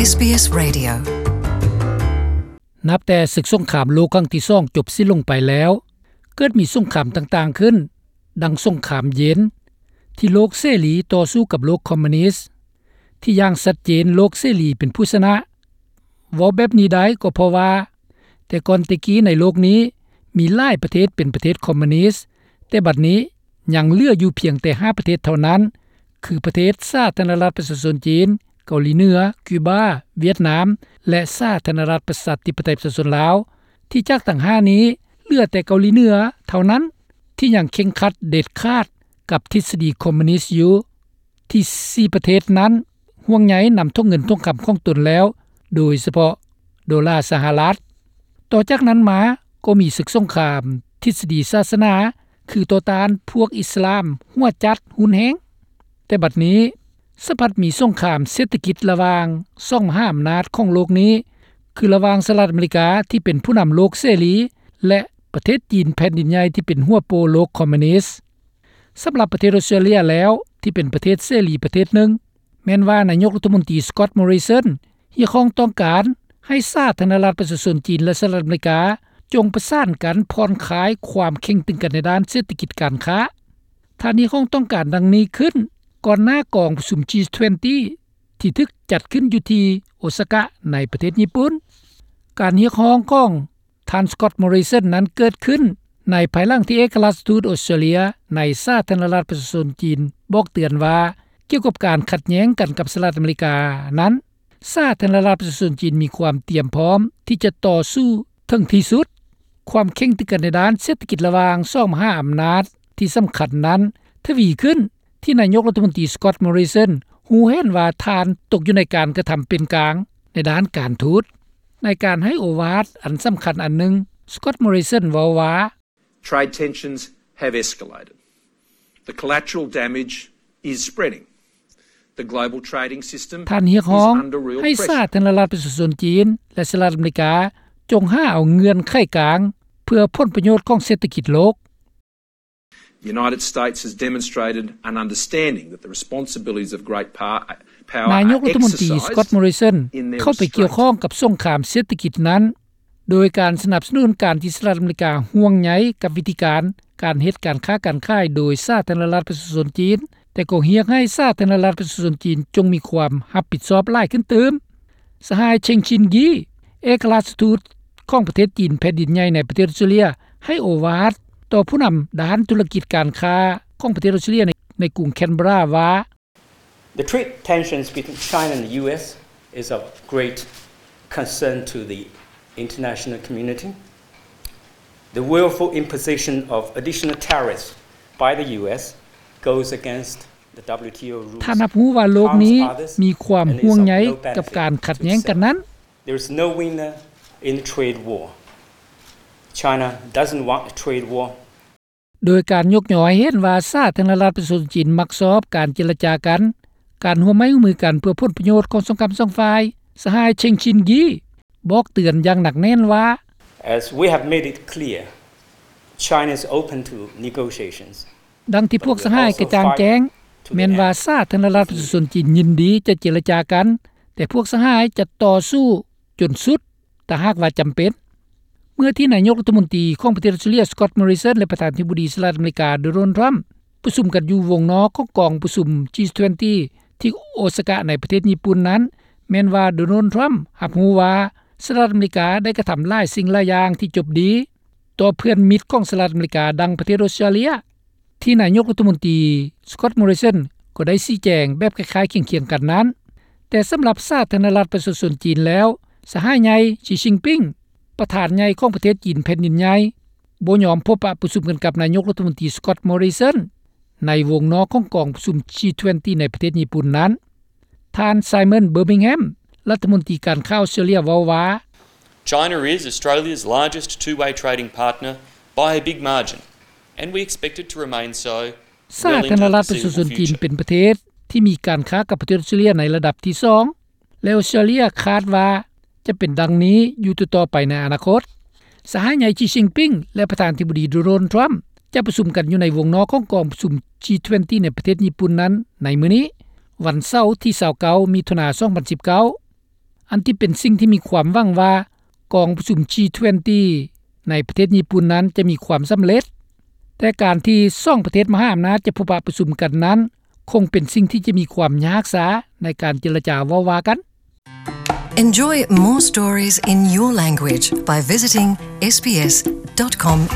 ເອສບີເອສ Radio. ນັບແຕ່ສຶກສົງຄາມໂລກຄັ້ງທີສອງຈົບສິ້ນລົງໄປແລ້ວ, ເກີດມີສົງຄາມຕ່າງໆຂຶ້ນ, ດັ່ງສົງຄາມເຢັນ ທີ່ໂລກເສລີຕໍ່ສູ້ກັບໂລກຄອມມູນິດ, ທີ່ຢ່າງຊັດເຈນໂລກເສລີເປັນຜູ້ຊະນະ. ເວົ້າແບບນີ້ໄດ້ກໍເພາະວ່າ ແຕ່ກ່ອນແຕ່ກີ້ໃນໂລກນີ້ມີຫຼາຍປະເທດເປັນປະເທດຄອມມູນິດ, ແຕ່ບັດນີ້ຍັງເຫຼືອຢູ່ພຽງແຕ່ຫ້າປະເທດເທົ່ານັ້ນ, ຄືປະເທດສາທາລະນະລັດປະຊາຊົນຈີນ, ເກົາຫຼີເໜືອ, ຄິວບາ, ຫວຽດນາມ ແລະ ສາທາລະນະລັດປະຊາທິປະໄຕປະຊາຊົນລາວ, ທີ່ຈາກທັງຫ້ານີ້ເຫຼືອແຕ່ເກົາຫຼີເໜືອເທົ່ານັ້ນ ທີ່ຍັງເຄັ່ງຄັດເດັດຂາດກັບທິດສະດີຄອມມູນິດຢູ່. ທີ່ສີ່ປະເທດນັ້ນຫ່ວງໃຍນຳຖົງເງິນຖົງຄຳຂອງຕົນແລ້ວ, ໂດຍສະເພາະໂດລາສະຫະລັດ. ຕໍ່ຈາກນັ້ນມາກໍມີສຶກສົງຄາມທິດສະດີສາສະໜາ, ຄືຕໍ່ຕ້ານພວກອິດສະລາມຫົວຈັດຮຸນແຮງ. ແຕ່ບັດນີ້ສະພັດມີສົງຄາມເສດຖະກິດລະຫວ່າງສອງມະຫາອຳນາດຂອງໂລກນີ້, ຄືລະຫວ່າງສະຫະລັດອາເມລິກາທີ່ເປັນຜູ້ນຳໂລກເສລີ ແລະ ປະເທດຈີນແຜ່ນດິນໃຫຍ່ທີ່ເປັນຫົວໂປໂລກຄອມມູນິດ. ສຳລັບປະເທດອົດສະຕຣາເລຍແລ້ວ ທີ່ເປັນປະເທດເສລີປະເທດໜຶ່ງ, ແມ່ນວ່ານາຍົກລັດຖະມົນຕີ Scott Morrison ຮຽກຮ້ອງຕ້ອງການໃຫ້ສາທາລະນະລັດປະຊາຊົນຈີນ ແລະ ສະຫະລັດອາເມລິກາ ຈົ່ງປະສານກັນຜ່ອນຄາຍຄວາມເຄັ່ງຕຶງກັນໃນດ້ານເສດຖະກິດການຄ້າ. ທ່ານຮຽກຮ້ອງຕ້ອງການດັ່ງນີ້ຂຶ້ນ ກ່ອນໜ້າກອງປະຊຸມ G twenty ທີ່ຖືກຈັດຂຶ້ນຢູ່ທີ່ໂອຊາກະໃນປະເທດຍີ່ປຸ່ນ. ການຮຽກຮ້ອງຂອງ ທ່ານ Scott Morrison ນັ້ນເກີດຂຶ້ນໃນພາຍຫຼັງທີ່ເອກະລາຊທູດອົດສະຕຣາເລຍໃນສາທາລະນະລັດປະຊາຊົນຈີນບອກເຕືອນວ່າ ກ່ຽວກັບການຂັດແຍ້ງກັນກັບສະຫະລັດອາເມລິການັ້ນ, ສາທາລະນະລັດປະຊາຊົນຈີນມີຄວາມຕຽມພ້ອມທີ່ຈະຕໍ່ສູ້ເຖິງທີ່ສຸດ. ຄວາມເຄັ່ງຕຶງກັນໃນດ້ານເສດຖະກິດລະຫວ່າງສອງມະຫາອຳນາດທີ່ສຳຄັນນັ້ນທະວີຂຶ້ນ ທີ່ນາຍົກລັດຖະມົນຕີ Scott Morrison ຮູ້ເຫັນວ່າທ່ານຕົກຢູ່ໃນການກະທຳເປັນກາງໃນດ້ານການທູດ. ໃນການໃຫ້ໂອວາດອັນສຳຄັນອັນໜຶ່ງ, Scott Morrison ເວົ້າວ່າ, Trade tensions have escalated. The collateral damage is spreading. The global trading system is under real pressure. ທ່ານຮຽກຮ້ອງໃຫ້ສາທາລະນະລັດປະຊາຊົນຈີນ ແລະ ສະຫະລັດອາເມລິກາ ຈົ່ງຫາເອົາເງື່ອນໄຂກາງເພື່ອຜົນປະໂຫຍດຂອງເສດຖະກິດໂລກ. The United States has demonstrated an understanding that the responsibilities of great power, power ນາຍົກລັດຖະມົນຕີ Scott Morrison ເຂົ້າໄປກ່ຽວຂ້ອງກັບສົງຄາມເສດຖະກິດນັ້ນ ໂດຍການສະໜັບສະໜູນການທີ່ສະຫະລັດອາເມລິກາຫ່ວງໃຍກັບວິທີການ ການເຮັດການຄ້າການຂາຍໂດຍສາທາລະນະລັດປະຊາຊົນຈີນ, ແຕ່ກໍຮຽກໃຫ້ສາທາລະນະລັດປະຊາຊົນຈີນຈົ່ງມີຄວາມຮັບຜິດຊອບຫຼາຍຂຶ້ນຕື່ມ. ສະຫາຍ Cheng Xin-Yi ເອກະລາຊທູດຂອງປະເທດຈີນແຜ່ນດິນໃຫຍ່ໃນປະເທດອົດສະຕຣາເລຍ ໃຫ້ໂອວາດຕໍ່ຜູ້ນຳດ້ານທຸລະກິດການຄ້າຂອງປະເທດອົດສະຕຣາເລຍໃນ ໃນກຸງແຄນເບຣາວ່າ, The trade tensions between China and the U S is of great concern to the international community. The willful imposition of additional tariffs by the U S goes against the W T O rules, ທ່ານຮັບຮູ້ວ່າໂລກນີ້ມີຄວາມຫ່ວງໃຍກັບການຂັດແຍ້ງກັນນັ້ນ. There is no winner in the trade war. China doesn't want a trade war. ໂດຍການຍົກຍໍໃຫ້ເຫັນວ່າສາທາລະນະລັດປະຊາຊົນຈີນມັກຊອບການເຈລະຈາກັນ, ການຮ່ວມໄມ້ຮ່ວມມືກັນເພື່ອຜົນປະໂຫຍດຂອງສອງກຳສອງຝ່າຍ, ສະຫາຍ Cheng Xin-Yi ບອກເຕືອນຢ່າງໜັກແໜ້ນວ່າ, As we have made it clear, China is open to negotiations. ດັ່ງທີ່ພວກສະຫາຍກະຈ່າງແຈ້ງ, ແມ່ນວ່າສາທາລະນະລັດປະຊາຊົນຈີນຍິນດີຈະເຈລະຈາກັນ, ແຕ່ພວກສະຫາຍຈະຕໍ່ສູ້ຈົນສຸດ ຖ້າຫາກວ່າຈຳເປັນ. ເມື່ອທີ່ນາຍົກລັດຖະມົນຕີຂອງປະເທດອົດສະຕຣາເລຍ Scott Morrison ແລະ ປະທານາທິບໍດີສະຫະລັດອາເມລິກາ Donald Trump ປະຊຸມກັນຢູ່ວົງນອກຂອງກອງປະຊຸມ G twenty ທີ່ໂອຊາກະໃນປະເທດຍີ່ປຸ່ນນັ້ນ, ແມ່ນວ່າ Donald Trump ຮັບຮູ້ວ່າສະຫະລັດອາເມລິກາໄດ້ກະທຳຫຼາຍສິ່ງຫຼາຍຢ່າງທີ່ຈົບດີຕໍ່ເພື່ອນມິດຂອງສະຫະລັດອາເມລິກາ ດັ່ງປະເທດອົດສະຕຣາເລຍ. ທີ່ນາຍົກລັດຖະມົນຕີ Scott Morrison ກໍໄດ້ຊີ້ແຈງແບບຄ້າຍໆຄຽງໆກັນນັ້ນ, ແຕ່ສຳລັບສາທາລະນະລັດປະຊາຊົນຈີນແລ້ວ, ສະຫາຍໃຫຍ່ Xi Jinping ປະທານໃຫຍ່ຂອງປະເທດຈີນແຜ່ນດິນໃຫຍ່ ບໍ່ຍອມພົບປະປະຊຸມກັນກັບນາຍົກລັດຖະມົນຕີ Scott Morrison ໃນວົງນອກຂອງກອງປະຊຸມ G twenty ໃນປະເທດຍີ່ປຸ່ນນັ້ນ. ທ່ານ Simon Birmingham ລັດຖະມົນຕີການຄ້າອົດສະຕຣາເລຍເວົ້າວ່າ, China is Australia's largest two-way trading partner by a big margin, and we expect it to remain so. ສາທາລະນະລັດປະຊາຊົນຈີນເປັນປະເທດທີ່ມີການຄ້າກັບປະເທດອົດສະຕຣາເລຍໃນລະດັບທີສອງ ແລະ ອົດສະຕຣາເລຍຄາດວ່າຈະເປັນດັ່ງນີ້ຢູ່ຕໍ່ໆໄປໃນອະນາຄົດ. ສະຫາຍໃຫຍ່ Xi Jinping ແລະ ປະທານາທິບໍດີ Donald Trump ຈະປະຊຸມກັນຢູ່ໃນວົງນອກຂອງກອງປະຊຸມ G twenty ໃນປະເທດຍີ່ປຸ່ນນັ້ນໃນມື້ນີ້, ວັນເສົາທີຊາວເກົ້າ ມິຖຸນາ ສອງພັນສິບເກົ້າ. ອັນທີ່ເປັນສິ່ງທີ່ມີຄວາມຫວັງວ່າ ກອງປະຊຸມ G twenty ໃນປະເທດຍີ່ປຸ່ນນັ້ນຈະມີຄວາມສຳເລັດ, ແຕ່ການທີ່ສອງປະເທດມະຫາອຳນາດຈະພົບປະປະຊຸມກັນນັ້ນ ຄົງເປັນສິ່ງທີ່ຈະມີຄວາມຍາກຊ້າໃນການເຈລະຈາເວົ້າວ່າກັນ. Enjoy more stories in your language by visiting sbs.com.au.